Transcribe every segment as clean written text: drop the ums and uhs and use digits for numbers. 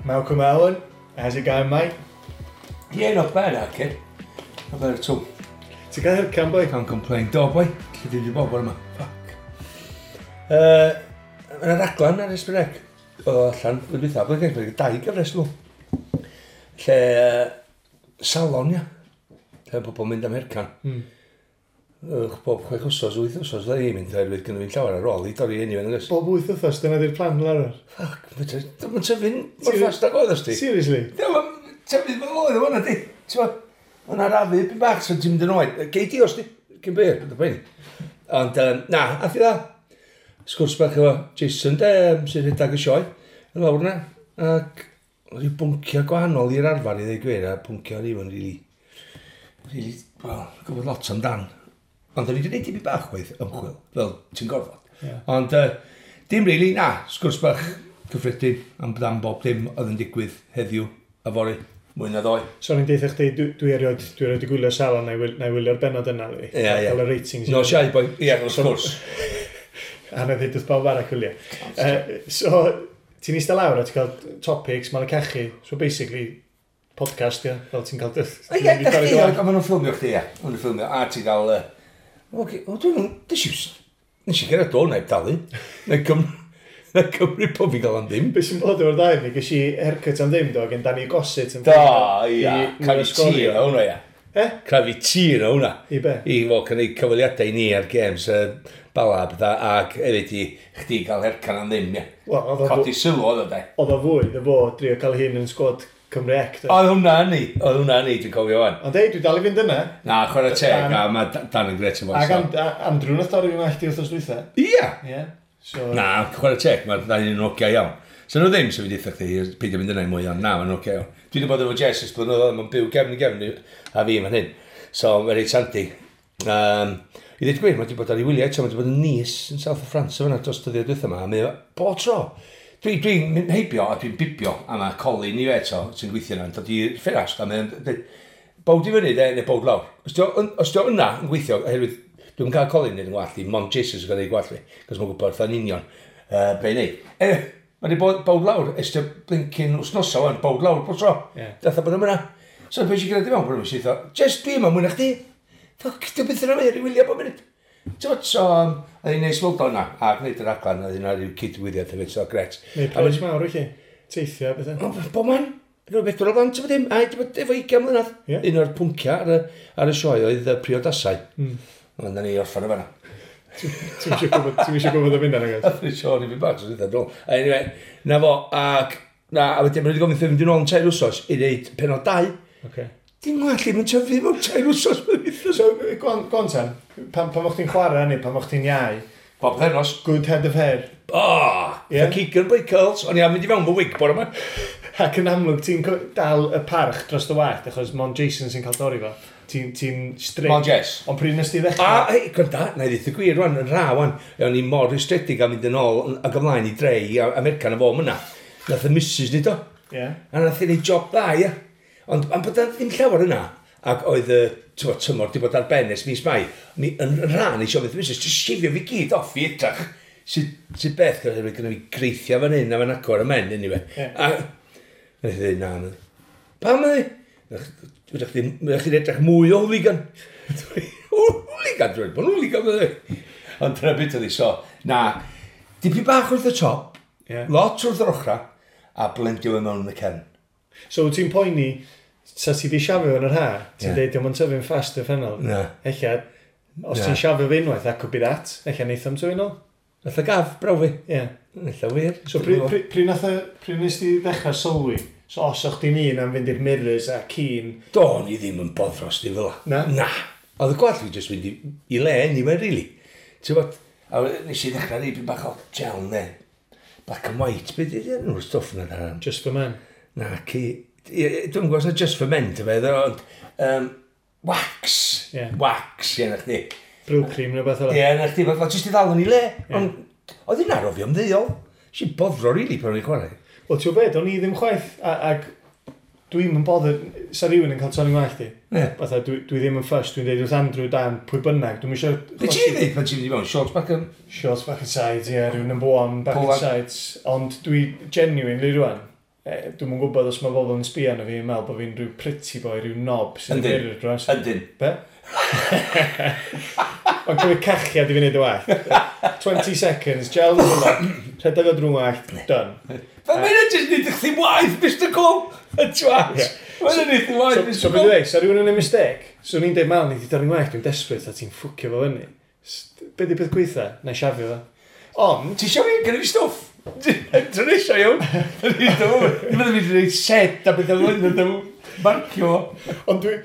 Malcolm Allen, how's it going, mate? Yeah, not bad, okay. Not bad at all. Ti'n cael haircut, boy? Can't complain. Do, boy. Lle dwi wedi bod bore yma? Fuck. Yna raglan ar S4C. O, allan, blwyddyn dwytha, blwyddyn dwytha, dau gyfres nhw. Lle, salon, ia. Lle pobl mynd am haircut. Bob 6 wsos, 8 wsos, fydda i'n mynd, oherwydd gynnu fi'n llawer ar ôl i dorri hynny fe'n agos. Bob 8 wythnos, dyna di'r plan fel arfer. Fuck, mae'n tyfu'n mor fast ag oedd os di. Seriously? Mae'n tyfu fel oedd o hwnna di. Ti'n ma, mae'n arafu byn bach, so ti'n mynd yn oed. Gei di os di, cyn byr, bydd y poeni. Ond, na, ath i dda. Sgwrs bach efo Jason, de, sy'n rhedeg y sioe, yn lawr yna. Ac rhyw bwnciau gwahanol i'r arfer i ddweud gwir, a bwnciau o'n i'n really, really, well, gwybod lot amdan. Ond o'n i wedi gwneud tipyn bach waith ymchwil, fel ti'n gorfod. Ond dim really, na, sgwrs bach cyffredin am bob dim oedd yn digwydd heddiw a fory, mwy na ddoe. So o'n i'n deitha chdi, dwi erioed di gwylio Salon, na i wylio'r benod yna. Li. Ie. Cael y ratings. No, siai, boi, ie, wrth gwrs. A na ddweud wrth bawb arall gwylio. So, ti'n eistedd lawr a ti'n cael topics, mae'n cachu. So basically, podcast, ia, fel ti'n cael. Ie, da chdi, a maen nhw'n ffilmio chdi, ie. Maen nhw'n ffilmio, a ti'n gael. Oce, o, dwi'n... Nes i gerdded o, na i dalu. Na i cymryd pob fi'n gael am ddim. Be sy'n bod efo'r ddau ni, ges i haircut am ddim, do, gen Danny Gossett yn Do, ia. I Crafu tir o hwnna, ia. Eh? Crafu tir o hwnna. I be? I fod cynnig cyfweliadau i ni ar games, Bala a pethau, ac hefyd i chdi gael haircut am ddim, ia. Wel, oedd o Codi sylw oedd o, de. Oedd o fwy, ddo fo, drio cael hyn yn sgwad Cymru C. Do. Oedd hwnna yn ni, oedd hwnna yn ni, dwi'n cofio wan. Ond ei, dwi dal i fynd yna. Na, chwarae teg, a mae Dan yn gret yn Ac fo. Andrew nath dorri fi wallt i wythnos dwytha. Ia! Ie. So, Na, chwarae teg, mae'r ddau yn ogia iawn. So nhw ddim, sef fi deutha chdi, peidio mynd yna i mwy, ond na, mae'n ogia iawn. Dwi wedi bod efo Jess ers blynyddoedd, mae'n byw gefn i gefn a fi fan hyn. So, mae'n reit handi. I ddweud gwir, mae wedi bod ar ei wyliau eto, mae wedi bod yn Nice yn South of France, fyna dros dyddiau dwytha yma, a mae o bob tro. Dwi'n dwi mynd heibio a dwi'n bibio, a mae Colin i fe eto, sy'n gweithio yna, yn dod i'r ffenast, a mae'n dweud, bowed i fyny, de, neu bowed lawr. Os di o yna yn gweithio, oherwydd dwi'n cael Colin yn gwallt i, mond Jason sy'n cael ei gwallt fi, cos mae'n gwybod wrtha'n union be i neud. Mae wedi bod bowed lawr, ers dy blincyn wsnosa wan, bowed lawr bob tro. Datha bod yma. So beth sy'n gwneud i mewn, bod yma, sy'n just dwi yma mwy na chdi. Fuck, dwi'n byth yn yma, i wylio bob munud. Ti'n bod, so, oedd hi'n neis weld o yna, a gwneud yr raglan, oedd hi'n rhyw cydwyddiad hefyd, so gret. Neu pres mawr i chi. Teithio, bethau. O, bob man. Rwy'n beth o'r blant, ti'n dim, a wedi bod efo 20 mlynedd. Un o'r pwnciau ar y sioe oedd y priodasau. Ond na ni orffan o fanna. Ti'n eisiau gwybod am hynna, nag oes? Nath ni sôn i fi bach, so dwi'n dod. Anyway, na fo, ac, na, a wedyn, maen nhw wedi gofyn fynd yn ôl yn 3 wsos i wneud penod 2. Dim gwallt ddim yn tyfu mewn 3 wsos. So, go on ten, pan o'ch chdi'n chwarae neu pan o'ch chdi'n iau, Bob pennos. Good head of hair. Oh, yeah. Keegan boy curls. O'n i am mynd i fewn fy wig bore yma. Ac yn amlwg, ti'n dal y parch dros dy wallt, achos mon Jason sy'n cael dorri fo. Ti'n ti strict. Mon Jess. Ond pryd nes ti ddechrau? A, hei, gwranda, na i ddeud y gwir rwan, yn ra wan. O'n i mor rwystredig am mynd yn ôl ac ymlaen i dre i America na fo yna. Nath y missus ni do. A nath i neud job dda, ia. Ond am bod 'na ddim llawer yna, ac oedd y t'mo, tymor di bod ar ben ers mis Mai, ni yn rhan eisiau fydd missus, just shifio fi gyd off i edrach. Sydd beth, gyda fi greithio fan hyn a fan acw ar y men, anyway. A nath i ddweud, na, na. Pam ydi? Fydych chi'n edrych mwy o hooligan. Hooligan, dwi'n bod hooligan, fydde. Ond dyna beth oedd hi, so, na, dipyn bach wrth y top, lot wrth yr ochra, a blendio fe mewn yn y cefn. So, wyt ti'n poeni, sa ti di siafio yn yr ha, ti'n deud, diolch yn tyfu'n fast uffernol. Na. Ella, os Na. ti'n siafio fe unwaith, that could be that. Ella neith am tyfu nôl. Nath y gaf, braw fi. Ie. Ella wir. So, pryd nes ti ddechrau sylwi? So, os o'ch ti'n un am fynd i'r mirrors a keen. Do'n i ddim yn boddros di fel Na? Na. Oedd y gwallt fi jyst mynd i le anyway, really. Ti'n bod, a nes i ddechrau rei bach o gel ne. Black and white, beth ydy enw'r stwff na da? Just for men. Na, ci. Dwi'n gwybod os na just for men, ti'n feddwl, ond wax. Wax, ie, na chdi. Brylcream neu beth fel Ie, na chdi, fel jyst i ddal yn ei le. Ond oedd hi'n arofio ymddeol. Nes i boddro, really, pan o'n i'n chwarae. Wel, ti'n gwybod, o'n i ddim chwaith, ac dwi'n yn bothered, sa rhywun yn cael torri ngwallt i. Fatha, dwi ddim yn fussed, dwi'n deud wrth Andrew, Dan, pwy bynnag, dwi'n eisiau. Be ti'n dweud pan ti'n mynd i mewn? Shorts back and Shorts back and sides, ie, yeah, rhyw number one, back Pull and sides. Ond dwi genuinely rwan, Dwi'm yn gwybod os mae bobl yn sbio arno fi yn meddwl bod fi'n rhyw pretty boy, rhyw knob sy'n Yndyn. gyrru dros. Ydyn. Be? Mae'n cymryd cachiad i fi wneud y wallt. 20 seconds, gel yn hwnna, rhedeg o drwy wallt, done. Fel mae'n jyst nid chdi waith, Mr Cole! Y twat! Ie. Mae'n nid chdi waith, So, Mr so beth Cole! dwi'n dweud, sa rhywun yn ei mistake, so ni'n deud, mal, ni wedi dorri'n wallt, dwi'n desperate, a ti'n ffwcio fo fyny. Be di peth gweitha? Na i siafio fo. Ond, Ti eisiau fi? Gynnu fi stwff! Dwi'n eisiau iawn! Dwi'n meddwl fi wedi gwneud set a beth o'n mynd marcio. Ond dwi...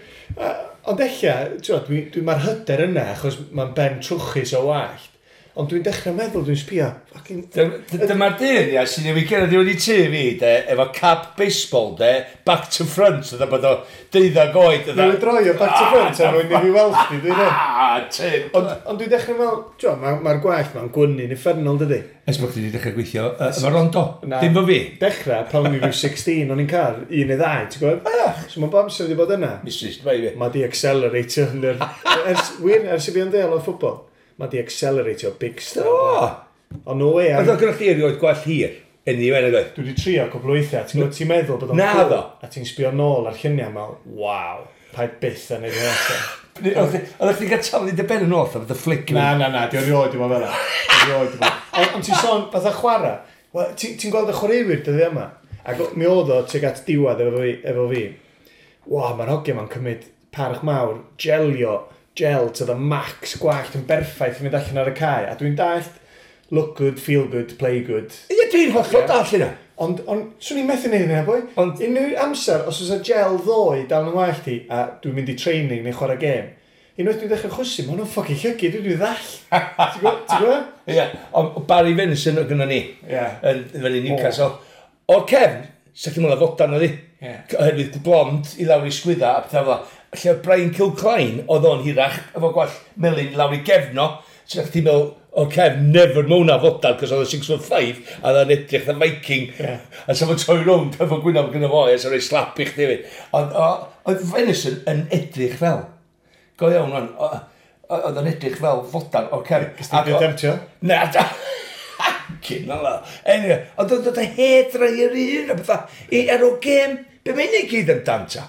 Ond ella, ti'n dwi, mae'r hyder yna, achos mae'n ben trwchus o wallt. Ond dwi'n dechrau meddwl, dwi'n sbio, fucking... Dyma'r dyn, ia, sy'n newid gerdded i wedi tŷ fi, de, efo cap baseball, de, back to front, oedd bod o 12 oed, oedd Newid droi o back to front er mwyn i fi weld chdi, dwi'n dweud. Ah, Tim. Ond dwi'n dechrau meddwl, ti'n mae'r gwallt ma'n gwynnu'n uffernol, dydy. Ers bod chdi wedi dechrau gweithio efo Rondo. Na. Dim fo fi. Dechrau, pan o'n i rhyw 16, o'n i'n cael un neu ddau, ti'n gwybod? So mae'n bob amser wedi bod yna. Mistress, bai fi. Mae di acceleratio yn yr... Ers, wir, ers i fi yn deall o ffwbol, mae di acceleratio big style. O! Ond no way, Oedd o gyda chdi erioed gwallt hir. Yn i wen oedd. Dwi wedi trio cwpl o weithiau, ti'n gwybod, ti'n meddwl bod o'n Na cool, ddo. A ti'n sbio nôl ar lluniau mewn, waw, paid byth yn neud hynna eto. Oedd chdi'n cael taflu dy ben yn ôl, oedd y flick. Na, na, na, di erioed i fod fel 'na. Erioed i fod. Ond ti'n sôn, fatha chwarae, wel, ti'n gweld y chwaraewyr dyddiau yma, ac mi oedd o tuag at diwedd efo fi, efo fi. Wa, mae'r hogia ma'n cymryd parch mawr, gelio, gel to the max, gwallt yn berffaith yn mynd allan ar y cae. A dwi'n dallt, look good, feel good, play good. Ie, dwi'n hollol Ie. dall hynna. Ond swn i'n methu neud hynna, boi. Unrhyw amser, os oes y gel ddoe dal yn wallt i, a dwi'n mynd i training neu chwarae gêm, unwaith dwi'n dechrau chwysu, mae hwnnw'n fucking llygu, dwi'n ddall. Ti'n gwybod? Ti'n gwybod? Ie, ond Barry Venison oedd gynnon ni. Ie. Yn fyny Newcastle. O'r cefn, sa chdi'n meddwl fodan oedd hi. Ie. Oherwydd blond i lawr i sgwydda a pethau fel 'na. Lle oedd Brian Kilcline, oedd o'n hirach, efo gwallt melyn i lawr i gefno. Sa chdi'n meddwl, o'r cefn, never mewn a fodan, cos oedd o 6'5", a oedd o'n edrych the Viking. Ie. A sa fo'n troi rownd efo gwynaf gyda fo, a sa rhoi slap i chdi hefyd. Ond oedd Venison yn edrych fel. Go iawn, wan. Oedd o'n edrych fel fodan o'r cefn. Gys ti temtio? Na, da. Cyn ala. Anyway, ond oedd y hair dryer un a bethau. I ar o gêm, be mae'n ei gyd amdan ta?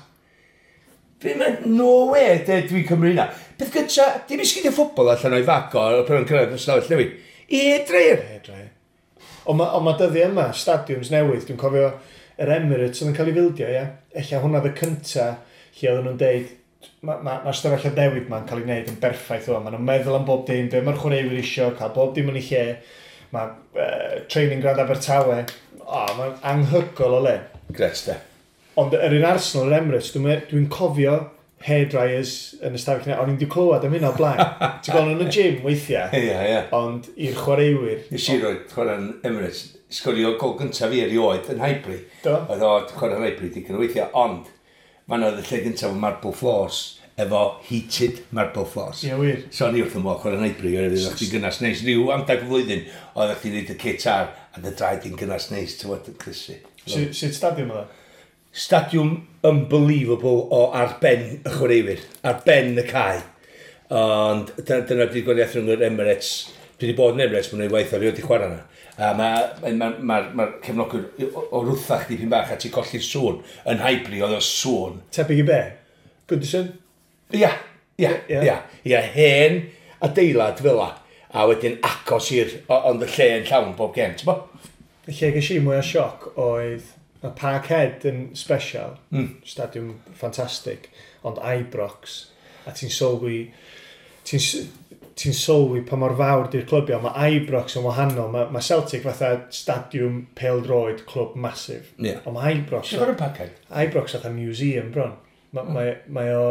Be mae'n, no way, de, dwi'n cymryd hynna. Beth gynta, dim i sgidio ffwbol allan o'i fago ar pan o'n cyrraedd y stafell newid. I hair dryer. Hair dryer. Ond ma, on ma dyddiau yma, stadiwms newydd, dwi'n cofio yr Emirates oedd yn cael ei fildio, ie. Ella hwnna oedd y cynta lle oedden nhw'n deud, mae'r ma, ma stafelloedd newydd ma'n cael ei wneud yn berffaith o. Maen nhw'n meddwl am bob dim, be mae'r chwaraewyr isio, cael bob dim yn ei lle. Mae training ground Abertawe, o, mae'n anhygoel o le. Gret, de. Ond yr un Arsenal, yr Emirates, dwi'n dwi cofio hairdryers yn y stafell yna. O'n i'n di clywed am hynna o blaen. Ti'n gweld nhw yn y gym weithiau, Ie, ie. ond i'r chwaraewyr. Nes i roi chwarae'n Emirates, sgorio gol gyntaf fi erioed yn Highbury. Do. Oedd o chwarae'n Highbury digon o weithiau, ond fan oedd y lle gyntaf o marble floors, efo heated marble floors. Ie, wir. So o'n i wrth y modd chwarae'n Highbury, oherwydd oedd chdi'n gynnas neis. Rhyw amdag y flwyddyn, oedd chdi'n neud y kit ar, a dy draed i'n gynnas neis, ti'n fod yn crysu. Sut stadiwm oedd o? Stadiwm unbelievable o ar ben y chwaraewyr, ar ben y cae. Ond dyna di'r gwahaniaeth rhwng yr Emirates. Dwi wedi bod yn Emirates, mae'n ei waith o rioed i chwarae yna. A mae ma, ma, ma cefnogwyr o rwthach dipyn bach a ti'n colli'r sŵn. Yn Highbury oedd o sŵn. Tebyg i be? Goodison? Ia, ia, Ie. ia. Ia, hen adeilad fel la. A wedyn agos i'r, ond y lle yn llawn bob gem, ti'n bo? Y lle ges i mwy o sioc oedd mae Parkhead yn special, stadiwm ffantastig, ond Ibrox, a ti'n sylwi, ti'n sylwi pa mor fawr di'r clybiau, mae Ibrox yn wahanol, mae Celtic fatha stadiwm pêl-droed clwb massive, ond mae Ibrox, Ti'n gwybod y Parkhead? Ibrox fatha museum bron. Mae o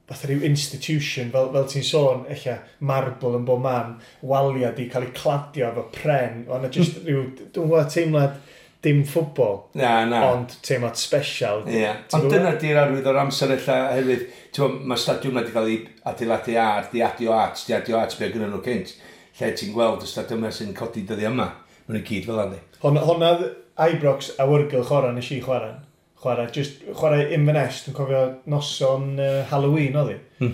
fatha rhyw institution, fel ti'n sôn, ella marble yn bob man, waliau di cael eu cladio efo pren, ond just rhyw, dwi'n gwybod teimlad dim ffwbol, Na, na. ond teimlad special. Ie. Ti'n Ond gwbod? dyna di'r arwydd o'r amser ella hefyd. Ti'n gwbod, mae stadiwm wedi cael ei adeiladu ar, di adio at, di adio at be gyda nhw cynt. Lle ti'n gweld y stadiwm yma sy'n codi dyddi yma. Maen nhw gyd fel yna. Honna Ibrox awyrgylch ora nes i chwarae. Chwarae, just chwarae Inverness, dwi'n cofio noson Halloween oedd hi.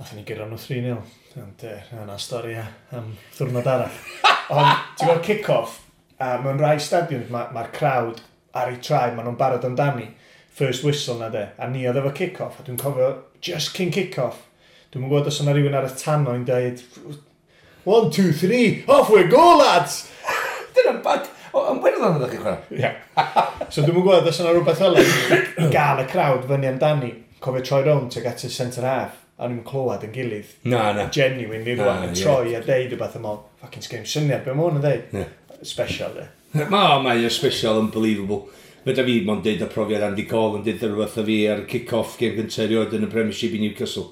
Nathon ni gyrra nhw 3-0. Ond yna stori am ddiwrnod arall. Ond ti'n gweld kick-off, a mewn rai stadiwms mae'r ma crowd ar eu traed, maen nhw'n barod amdani. First whistle na de, a ni oedd efo kick-off, a dwi'n cofio just cyn kick-off, dwi'n gwybod os yna rhywun ar y tannoy yn dweud, 1, 2, 3, off we go, lads! Dyna'n bad. O, yn Werddon ydych chi'n chwarae? Ie. So dwi'n gwybod os yna rhywbeth fel yna i gael y crowd fyny amdani. Cofio troi rownd tuag at y centre half, a nhw'n clywed yn gilydd. Na, na. Genuinely Na, rwan, yn ie. troi a deud rhywbeth am ôl, fucking sgrim syniad, be mae hwn yn deud? Ie. Special, de. Ma, mae o special, unbelievable. Fedra fi mond deud y profiad Andy Cole yn deud rhywbeth o fi ar y kick-off game gyntaf erioed yn y Premiership i Newcastle.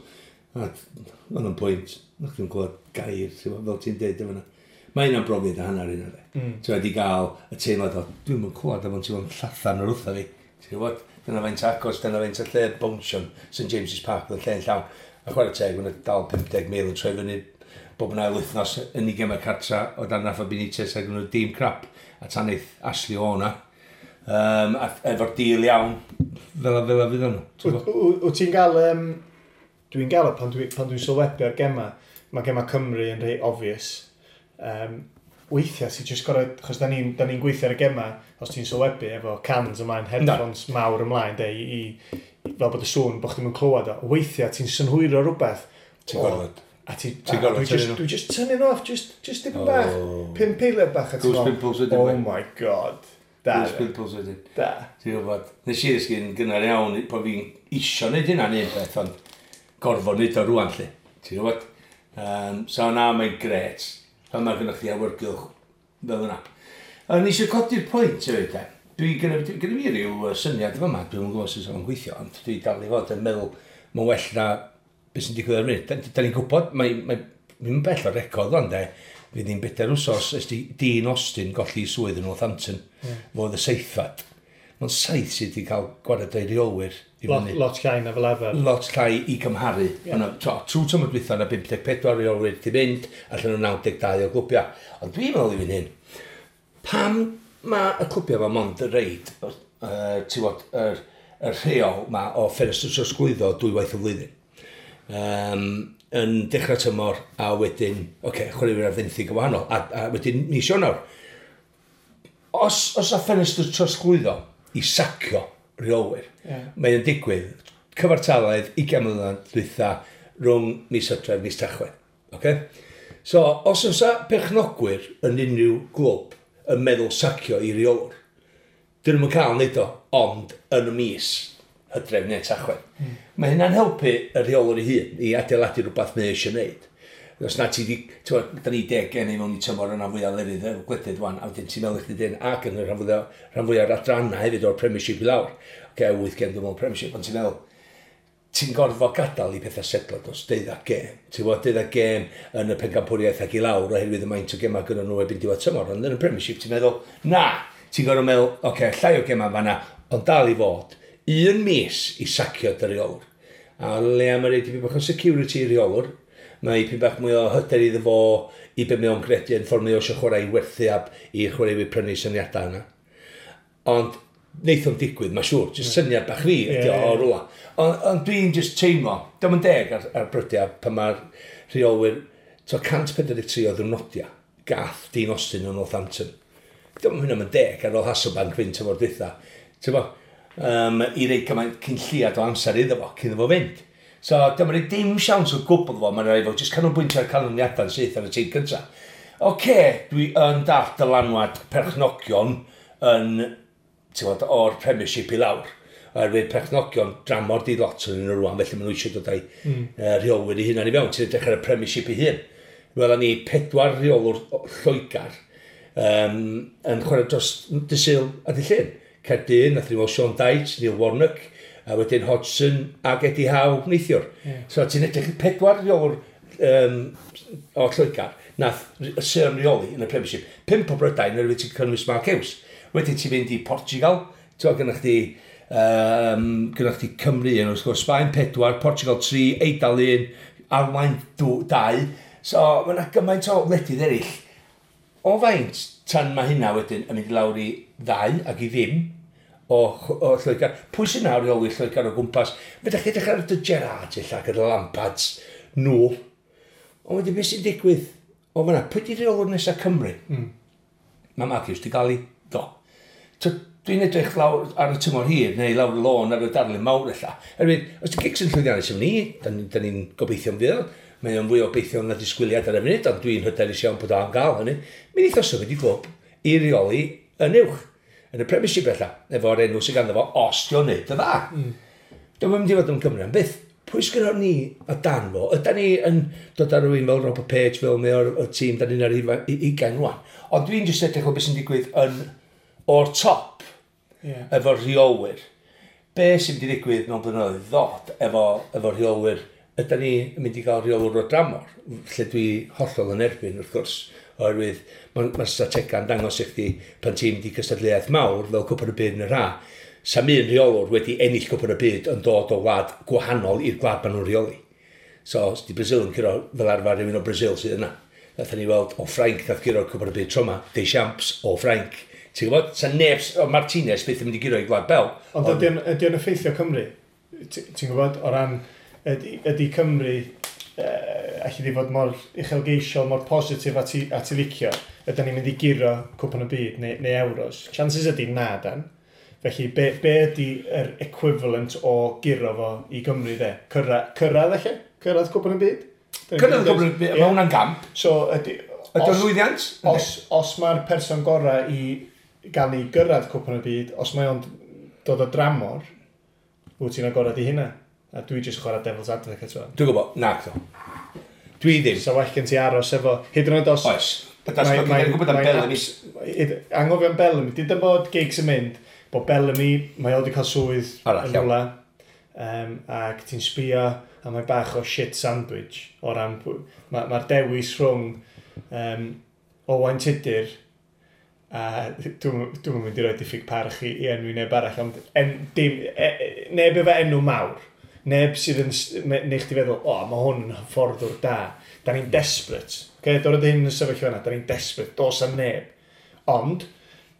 A, Oedd o'n pwynt. Nach chi'n clywed gair, ti'n gwbod, fel ti'n deud efo yna. Mae hynna'n brofiad a hanner hynna, de. Ti'n wedi gael y teimlad o, dwi'n mynd clywed am ti'n mynd llathan o'r wrtha fi. Ti'n gwybod, dyna faint agos, dyna faint y lle bownsion St James's Park, oedd y lle'n llawn. A chwarae teg, mae'n dal 50,000 yn troi fyny bob yn ail wythnos yn ei gemau cartra o dan Rafa Benitez ac yn nhw dîm crap a taneith Ashley O'na. A efo'r deal iawn, fel a fel a fydd nhw. Ti'n gwbod? Wyt ti'n gael... Dwi'n gael o pan dwi'n pan dwi sylwebu ar gema, mae gema Cymru yn rhai obvious. Weithiau ti'n just gorau, chos da ni'n ni gweithio ar y gema, os ti'n sylwebu efo cans ymlaen, headphones mawr ymlaen, de, i, fel bod y sŵn, bod chdi'm yn clywed o. Weithiau ti'n synhwyro rhywbeth. Ti'n gorfod. A ti, Ti'n a gorfod dwi just, tynnu nhw. dwi just tynnu nhw off, just dipyn bach. Oh. 5 eiliad bach. A ti'n Goose meddwl, pimples wedyn, oh boi. my God. Da, Goose pimples wedyn. da. Ti'n gwybod, nes i ddysgu'n gynnar iawn bod fi'n isio neud hynna'n un peth, ond gorfod neud o rwan, lle. Ti'n gwybod? So na, mae'n gret. Pan mae gennych chi awyrgylch fel yna. A nes i codi'r pwynt hefyd, de. Dwi gynna fi ryw syniad efo yma, dwi'n gwybod sut o'n gweithio, ond dwi dal i fod yn meddwl mae'n well na beth sy'n digwydd ar y funud. Da ni'n gwybod, mae mae'n bell o'r record ond de, fydd hi'n bedair wsos ers di Dean Austin golli ei swydd yn Northampton, yeah. Fo oedd y seithfad. Mae'n saith sydd wedi cael gwared o'i reolwyr i Lot, fyny. lot llai na fel arfer. Lot llai i gymharu. Yeah. Trwy tymor dwytha yna 54 reolwyr di fynd, allan o 92 o glwbiau. Ond dwi'n meddwl i fynd hyn, pam mae y clwbiau yma mond y reid, ti'n gwbod, yr rheol ma o ffenestr trosglwyddo dwywaith y flwyddyn. Yn dechrau tymor a wedyn, oce, okay, chwaraewyr ar fenthyg yn wahanol, a wedyn mis Ionawr. Os a ffenestr trosglwyddo i sacio rheolwyr, Ie. mae'n digwydd cyfartaledd 20 mlynedd dwytha rhwng mis Hydref, mis Tachwedd. Okay? So, os oes perchnogwyr yn unrhyw glwb yn meddwl sacio i reolwr, dyn nhw'n cael neud o, ond yn y mis Hydref neu Tachwedd. Mae hynna'n helpu y rheolwr ei hun i adeiladu rhywbeth mae eisiau neud. Os na ti di, ti'n gwbod, da ni 10 gen i mewn i tymor yna fwyaf lefydd efo gwledydd wan, a wedyn ti'n meddwl i chdi dyn, ac yn y rhan fwyaf o'r adrannau hefyd o'r Premiership i lawr. Oce, 8 gem dwi'n meddwl Premiership, ond ti'n meddwl, ti'n gorfod gadael i pethau setlo dros 12 gêm. Ti'n gwybod, 12 gêm yn y pencampwriaeth ac i lawr oherwydd y maint o gemau gyda nhw erbyn diwedd tymor. Ond yn y Premiership ti'n meddwl, na, ti'n gorfod meddwl, oce, okay, llai o gemau fanna, ond dal i fod un mis i sacio dy reolwr. A le am yr dipyn bach o security i reolwr, mae dipyn bach mwy o hyder iddo fo i be mae o'n gredu yn ffordd mae o eisiau chwarae i werthu ab i chwaraewyr prynu syniadau yna. Ond neith o'n digwydd, mae'n siŵr, jyst syniad bach fi ydi o Ie, o ie. rwla. Ond dwi'n just teimlo, diolch yn deg ar brydiau pan mae'r rheolwyr, to 143 o ddwrnodiau, gath Dean Austin yn Northampton. Diolch yn hynny'n deg ar ôl Hasselbank fynd tymor dwytha. Ti'n bo, i rei cymaint cyn lliad o amser iddo fo, cyn iddo fo fynd. So, dyma rei dim siawns o gwbl fo, mae'n rhaid fo, jyst canolbwyntio ar canlyniadau'n syth ar y tîm cyntaf. Oce, dwi yn dall dylanwad perchnogion yn, ti'n gwbod, o'r Premiership i lawr. Oherwydd perchnogion dramor di lot yn nhw rwan, felly maen nhw eisiau dod â'i rheolwyr eu hunain i fewn. Ti'n edrych ar y Premiership ei hun. Welon ni pedwar rheolwr o Lloegr yn chwarae dros Dydd Sul a Dydd Llun. Caerdydd, nath ni weld Sean Dyche, Neil Warnock, a wedyn Hodgson ac Eddie Howe neithiwr. Yeah. So ti'n edrych pedwar rheolwr o Lloegr, nath Sir reoli yn y Premiership. 5 o Brydain, oherwydd ti'n cynnwys Mark Hughes. Wedyn ti'n mynd i Portugal, ti'n gynnwch chdi, gynnwch chdi Cymru yn wrth gwrs, Sbaen 4, Portugal 3, Eidal 1, Almaen 2. So mae yna gymaint o wledydd eraill. O faint tan mae hynna wedyn yn mynd i lawr i 2 ac i ddim o Lloegr. Pwy sy'n nawr reoli Lloegr o gwmpas? Fedrech chi edrych ar y Gerrards ella gyda Lampards, nhw. Ond wedyn beth sy'n digwydd? O fan'na, pwy di reolwr nesaf Cymru? Mae Mark Hughes di gael ei do. So, Dwi'n edrych lawr ar y tymor hir, neu lawr y lôn ar y darlun mawr ella. Erwydd, os di Giggs yn llwyddiannus efo ni, da ni'n gobeithio am fydd, mae o'n fwy o obeithio na disgwyliad ar y funud, ond dwi'n hyderus iawn bod o am gael hynny. Mi wneith o symud i glwb i reoli yn uwch, yn y Premiership ella, efo'r enw sydd ganddo fo, os di o'n neud y dda. Dwi'n mynd i fod yn Cymru am byth. Pwy sgynnon ni o dan fo? Ydan ni yn dod ar rhywun fel Robert Page, fel mae o'r tîm, da ni'n ar 20 rwan. Ond dwi'n jyst edrych o beth sy'n digwydd yn o'r top efo'r rheolwyr. Be sy'n mynd i ddigwydd mewn blynyddoedd ddod efo rheolwyr? Ydan ni yn mynd i gael rheolwyr o dramor, lle dwi hollol yn erbyn, wrth gwrs, oherwydd mae'r stratega'n dangos i chdi pan ti'n mynd i cystadleuaeth mawr fel Cwpan y Byd yn yr ha, sa'm un rheolwr wedi ennill Cwpan y Byd yn dod o wlad gwahanol i'r gwlad maen nhw'n rheoli. So, os di Brazil yn curo fel arfer rhywun o Brazil sydd yna. Nathon ni weld o Ffrainc nath guro'r Cwpan y Byd tro yma, Deschamps o Ffrainc. Ti'n gwybod? Sa neb, o Martinez byth yn mynd i guro i Gwlad Belg. Ond ydy o'n effeithio Cymru? Ti'n gwybod, o ran, ydy Cymru, allu di fod mor uchelgeisiol, mor positif a ti licio, ydy ni'n mynd i guro Cwpan y Byd neu Euros? Chances ydy na, dan. Felly, be ydy yr equivalent o guro fo i Gymru, de? Cyrraedd eich? Cyrraedd Cwpan y Byd? Cyrraedd Cwpan y Byd, mae hwnna'n gamp. So, ydy... Ydy o'n lwyddiant? Os mae'r person gorau i gael ni gyrraedd Cwpan y Byd, os mae o'n dod o dramor, wyt ti'n agorad i hynna. A dwi jyst chwarae devil's advocate fan. Dwi'n gwybod, na, do. Dwi ddim. So well gen ti aros efo, hyd yn oed os... Oes. Mae'n gwybod am Bellamy. Anghofio am Bellamy. Dyd yn bod Giggs yn mynd, bod Bellamy, mae o wedi cael swydd yn rhywle, ac ti'n sbio, a mae bach o shit sandwich o ran, mae'r dewis rhwng Owain Tudur, a dwi'n mynd i roi diffyg parch i enwi neb arall, ond neb efo enw mawr, neb sydd yn neu chdi feddwl, o, mae hwn yn hyfforddwr da, da ni'n desperate, okay? Dod hyn yn sefyllfa yna, da ni'n desperate, dos am neb, ond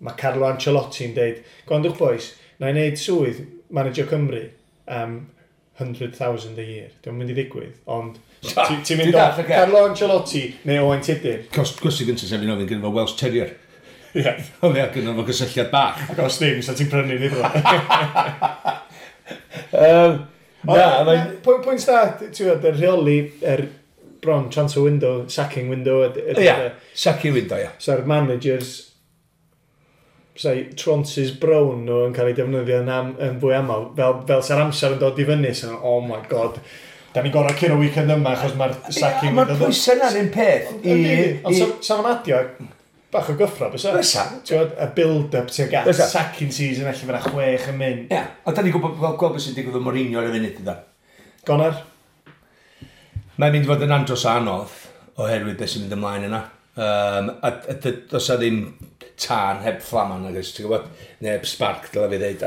mae Carlo Ancelotti'n deud, gwrandwch boys, na i wneud swydd manager Cymru am 100,000 a year. Dwi'n mynd i ddigwydd, ond ti'n mynd o Carlo Ancelotti neu Owain Tudur. Cwestiwn gyntaf sef fi'n ofyn gyda fo Welsh Terrier. Ie. Oedd e gyda fo gysylltiad bach. Ac os ddim, sa ti'n prynu ni fo. Na, mae'n... Pwynt da, ti'n gwybod, y rheoli, yr bron transfer window, sacking window. Ie, sacking window, ie. So'r managers, sai tronces brown nhw yn cael eu defnyddio yn fwy aml, fel sa'r amser yn dod i fyny, so, oh my god, da ni'n gorau curo weekend yma, achos mae'r sacking... Mae'r pwysau na'r un peth. Ond sa fo'n adio bach o gyffro, bysa? Bysa. Ti'n gwybod, y build-up tuag at sacking season, allan fyna 6 yn mynd. Ie, ond da ni'n gwybod gweld beth sy'n digwydd efo Mourinho ar y funud, ynddo. Gonar? Mae'n mynd i fod yn andros o anodd oherwydd beth sy'n mynd ymlaen yna. A does 'na ddim tân heb fflaman, nag oes, ti'n gwybod? Neu heb spark, dylai fi ddeud, a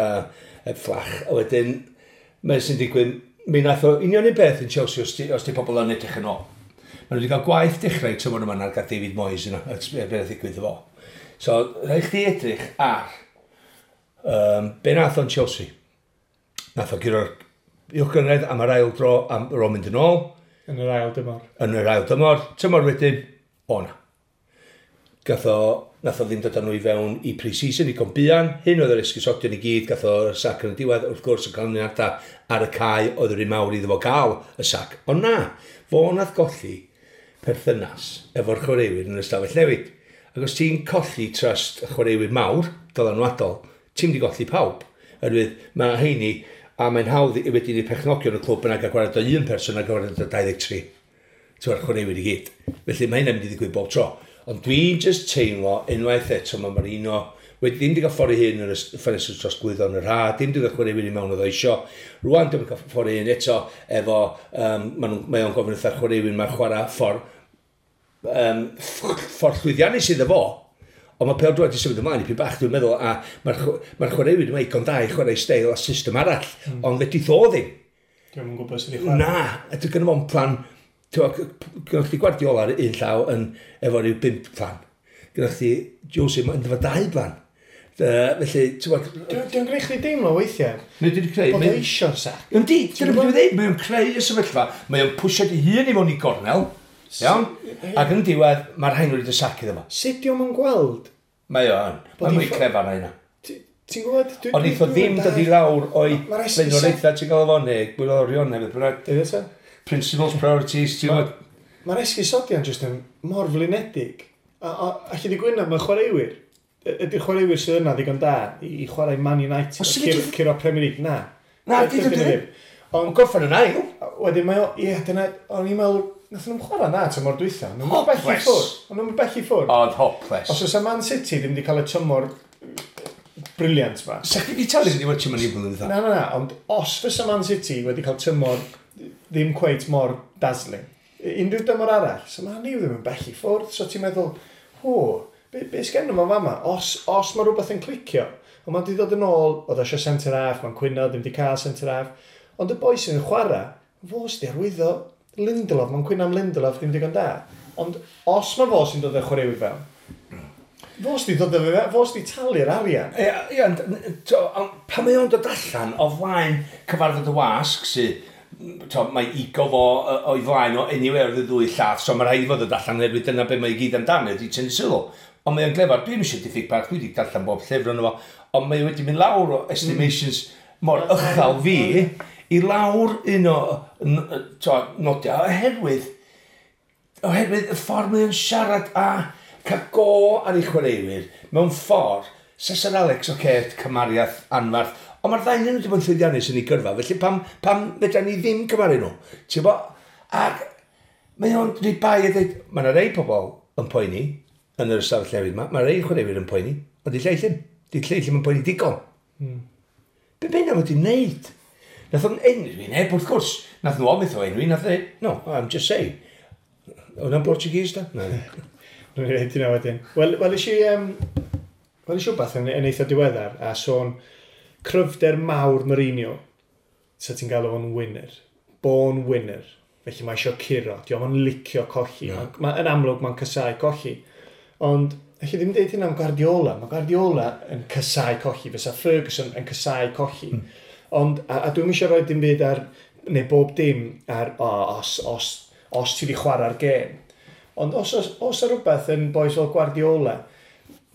heb fflach. A wedyn, mae sy'n digwydd, mi nath o union un beth yn Chelsea os di pobl yn edrych yn ôl. Maen nhw wedi cael gwaith dechrau tymor yma na'r gael David Moyes yna, a beth ddigwydd efo. So, rhaid chdi edrych ar be nath o'n Chelsea. Nath o guro'r uwch gynghrair am yr ail dro, am yr ôl mynd yn ôl. Yn yr ail dymor. Yn yr ail dymor. Tymor wedyn, o na. Nath o ddim dod â nhw i fewn i pre-season i buan. Hyn oedd yr esgusodion i gyd, gath o'r sac yn y diwedd, wrth gwrs y canlyniadau ar y cae oedd yr un mawr iddo fo gael y sac. Ond na, fo nath golli perthynas efo'r chwaraewyr yn yr ystafell newid. Ac os ti'n colli trust y chwaraewyr mawr, dylanwadol, ti'n mynd i golli pawb. Oherwydd mae heini, a mae'n hawdd i wedyn i perchnogion y clwb yna gael gwared o un person a gwared o 23. Ti'n chwaraewyr i gyd. Felly mae hynna'n mynd i ddigwydd bob tro. Ond dwi'n just teimlo unwaith eto mae Mourinho wedi ddim wedi cael ffordd ei hun yn y ffenestr trosglwyddo yn yr ha, ddim wedi cael chwaraewyr i mewn oedd o isio. Rwan ddim wedi cael ffordd ei hun eto efo, mae o'n gofyn wrtha'r chwaraewyr mae'n chwarae ffordd llwyddiannus iddo fo. Ond mae pêl-droed wedi symud ymlaen i pyn bach, dwi'n meddwl, a mae'r chwaraewyr yma igon da i chwarae steil a system arall, ond fedrith o ddim. Dwi'm yn gwybod sut i chwarae. Na, a dwi'n gynno fo'n plan. Gynnoch chdi Guardiola ar un llaw yn efo rhyw 5 plan. Gynnoch chdi Jose yn efo 2 plan. Felly, ti'n gwybod... Dwi'n gwneud chdi deimlo weithiau. Mae wedi creu... Bod o eisiau'r sac. Yndi, dyna beth dwi'n dweud. Mae o'n creu y sefyllfa. Mae o'n pwysio di hun i mewn i gornel. Iawn? Ac yn diwedd, mae'r rhain wedi sac iddo fo. Sut dio'm yn gweld? Mae o yn. Mae'n mwy clefar na hynna. Ti'n gwybod? Ond eith o ddim dod i lawr o'i blaenoriaethau ti'n gael efo, neu gwyddorion neu beth bynnag. Dweud eto? Principles, priorities, ti'n gwybod? Mae'r esgusodion jyst yn mor flinedig. A allu di gwyno, mae chwaraewyr. Ydy'r chwaraewyr sydd yna ddigon da i chwarae Man United, curo Premier League? Na. Na, dydyn nhw ddim. Ond gorffen yn ail. Wedyn mae o, ie, dyna, o'n i'n meddwl, nath nhw'n chwarae na tymor dwytha. Nhw'n bell i ffwrdd. O'n nhw'n bell i ffwrdd. Oedd hopeless. Os oes Man City ddim wedi cael y tymor briliant ma. Sa chdi wedi talu wedi watch Man U blwyddyn dwytha? Na, na, na, ond os fysa Man City wedi cael tymor ddim cweit mor dazzling, unrhyw dymor arall, so Man U ddim yn bell i ffwrdd, so ti'n meddwl, ho, be sgen nhw fama? Os mae rhywbeth yn clicio, ond mae'n wedi dod yn ôl, oedd eisiau centre half, mae'n cwyno, ddim wedi cael centre half, ond y boi sy'n chwarae, fo sydd wedi arwyddo Lindelof, mae'n cwyno am Lindelof, ddim digon da. Ond os mae fo sy'n dod â chwaraewyr fewn, fo sydd wedi dod â fe, fo sydd wedi talu'r arian. Ie, ond pan mae o'n dod allan o flaen cyfarfod y wasg sydd, mae ego fo o'i flaen o anywhere oedd y ddwy llath, so mae rhaid i fod dod allan oherwydd dyna be mae i gyd amdano, ydy tynnu sylw. Ond mae o'n glefar, dwi'n eisiau diffyg parch, dwi wedi darllen bob llyfr yno fo, ond mae wedi mynd lawr o estimations mor uchel fi, i lawr un o nodiau, oherwydd y ffordd mae o'n siarad a cael go ar ei chwaraewyr, mewn ffordd, Sir Alex, oce, cymariaeth anfarth, ond mae'r ddau nhw wedi bod yn llwyddiannus yn ei gyrfa, felly pam fedra ni ddim cymaru nhw? Ti'n bo? Ac mae o'n rhaid bai a dweud, mae yna rei pobl yn poeni yn yr ystafell newydd yma, mae rei chwaraewyr yn poeni, ond di lleill ddim. Di lleill ddim yn poeni digon. Be bynnag wedi wneud? Nath o'n enwi neb, wrth gwrs. Nath nhw ofyn o enwi, nath dweud, no, I'm just saying. Oedd o'n Portuguese, da? Na. Nw'n i reid hynna wedyn. Wel, is i wbeth yn eitha diweddar, a sôn cryfder mawr Mourinho, sa ti'n galw fo'n winner. Born winner. Felly mae eisiau curo. Di o'm yn licio colli. No. Yn amlwg mae'n casau colli. Ond, allu ddim deud hynna am Guardiola. Mae Guardiola yn casau colli. Fysa Ferguson yn casau colli. Ond, a dwi'm eisiau rhoi dim byd ar, neu bob dim ar, os ti wedi chwarae'r gêm. Ond os os rhywbeth yn boys fel Guardiola,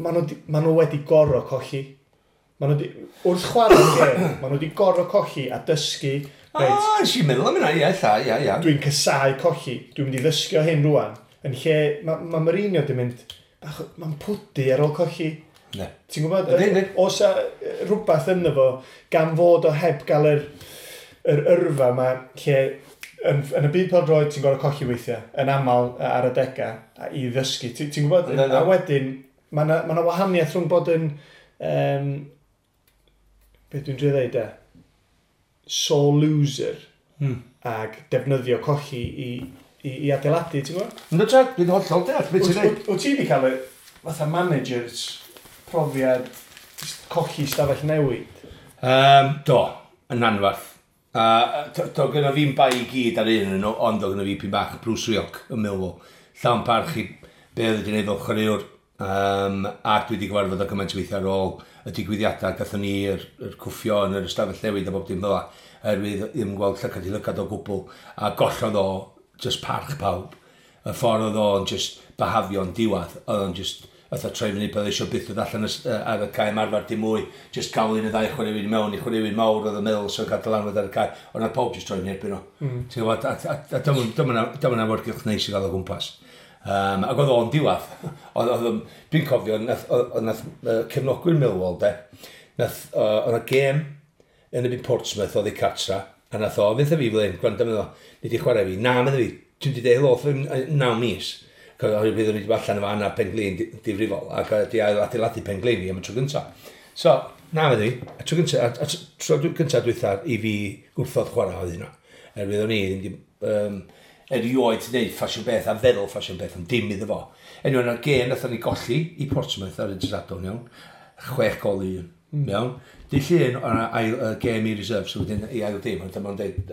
maen nhw wedi gorfod colli. Maen nhw wrth chwarae'r gêm, maen nhw wedi gorfod colli a dysgu. Reit, nes i'n meddwl am hynna, ie. Dwi'n casau colli, dwi'n mynd i ddysgu o hyn rwan. Yn lle, mae Mourinho wedi mynd, mae'n pwdu ar ôl colli. Ne. Ti'n gwybod, os rhywbeth ynddo fo, gan fod o heb gael yr yrfa yma, lle yn y byd pêl-droed ti'n gorfod colli weithiau, yn aml ar adegau, i ddysgu. Ti'n gwybod, a wedyn, mae yna wahaniaeth rhwng bod yn, beth dwi'n drio ddeud e, sore loser, ag defnyddio colli i adeiladu, ti'n gwybod? Ynddo, Jack, dwi'n hollol deall beth ti'n dweud. Wyt ti wedi cael y fatha managers profiad colli stafell newid? Do, yn anfarth. Do gyda fi'n bai i gyd ar un nhw, ond do gyda fi pyn bach Bruce Rioch yn Millwall. Llawn parch i be oedd wedi gwneud fel chwaraewr. A dwi wedi gyfarfod o gymaint o weithiau ar ôl y digwyddiadau. Gathon ni yr cwffio yn yr ystafell newid a bob dim fel 'na. Oherwydd ddim yn gweld llygad i lygad o gwbl. A gollodd o just parch pawb. Y ffordd oedd o'n just behafio'n diwedd. Oedd o'n just fatha troi fyny bydd eisiau byth dod allan ar y cae ymarfer dim mwy, just gael un y ddau chwaraewyr i mewn, i chwaraewyr mawr oedd y meddwl sy'n cael dylanwad ar y cae, ond nath pawb just troi fyny erbyn o. Ti'n gwybod, a dyma awyrgylch neis i gael o gwmpas. Ac oedd o'n diwedd. Dwi'n cofio, nath cefnogwyr Millwall, de, nath, oedd y gêm yn y byd Portsmouth oedd ei cartra, a nath o, fydd fi fel un, gwrando meddwl, ni di chwarae fi, na, meddwl fi, dwi'n di deud helo 9 mis. Oherwydd byddwn ni wedi bod allan efo anaf pen-glin difrifol ac wedi adeiladu pen-glin fi am y tro gyntaf. So, na fyddi, y tro gyntaf, tro gyntaf dwytha i fi gwrthod chwarae oedd hynna. Erwydd o'n i ddim erioed wneud ffasiwn beth a feddwl ffasiwn beth, ond dim iddo fo. Anyway, yna'r gêm nathon ni golli i Portsmouth ar y dydd Sadwrn, iawn. 6 gol i 1, iawn. Dydd Llun, o'na ail gêm i reserve, so wedyn i ail dim, ond dyma'n dweud,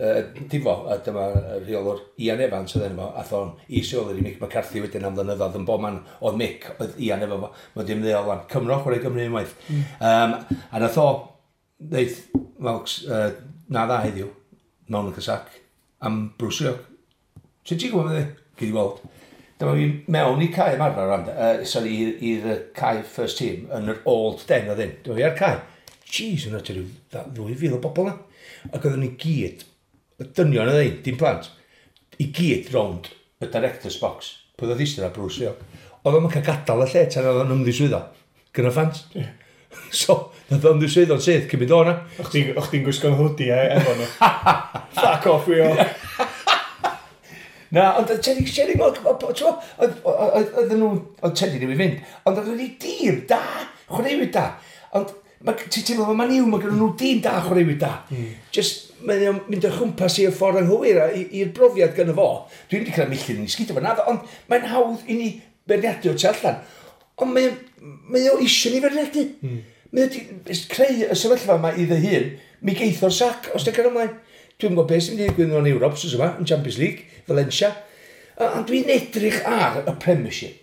difo, a dyma rheolwr Ian Evans oedd enw fo, ath o'n is-reolwr i Mick McCarthy wedyn am flynyddoedd, yn bob man oedd Mick, oedd Ian efo fo, mae'n dim ddeol fan, Cymro, chwarae Gymru unwaith. A nath o, ddeud, wel, na dda heddiw, mewn y casac, am Bruce Rioch. Sut ti'n gwybod beth? Gyd i weld. Dyma fi mewn i cae ymarfer, sorry, i'r cae first team, yn yr old den oedd hyn. Dyma fi ar cae. Jeez, yna ti rhyw 2,000 o bobl na. Ac oedden ni gyd, y dynion yna dim plant, i gyd rownd y director's box. Pwy oedd eistedd ar Bruce Rioch. Oedd o'n cael gadael y lle tan oedd o'n ymddiswyddo. Gyda fans. Yeah. So, nath o'n ymddiswyddo'n syth, cyn mynd o'na. O'ch ti'n gwisgo'n hoodie efo nhw. Fuck off, Rioch. Na, ond Teddy, Teddy, oedd nhw, oedd Teddy ddim i fynd, ond oedd nhw dîm da, chwaraewyr da. Ond ti'n teimlo fel Man U, mae gen nhw dîm da, chwaraewyr da. Just, mae'n o'n mynd o chwmpas i'r ffordd anghywir i'r brofiad gynno fo. Dwi'n wedi cael milltir yn ei sgidio fo, naddo, ond mae'n hawdd i ni beirniadu o tu allan. Ond mae o eisiau ni feirniadu. Mae o wedi creu y sefyllfa yma iddo hun, mi geith o'r sac, os dwi'n cael ymlaen. Dwi'n gwybod beth sy'n mynd i ddigwydd yn Ewrop, wsos yma, yn Champions League, Valencia. Ond dwi'n edrych ar y Premiership.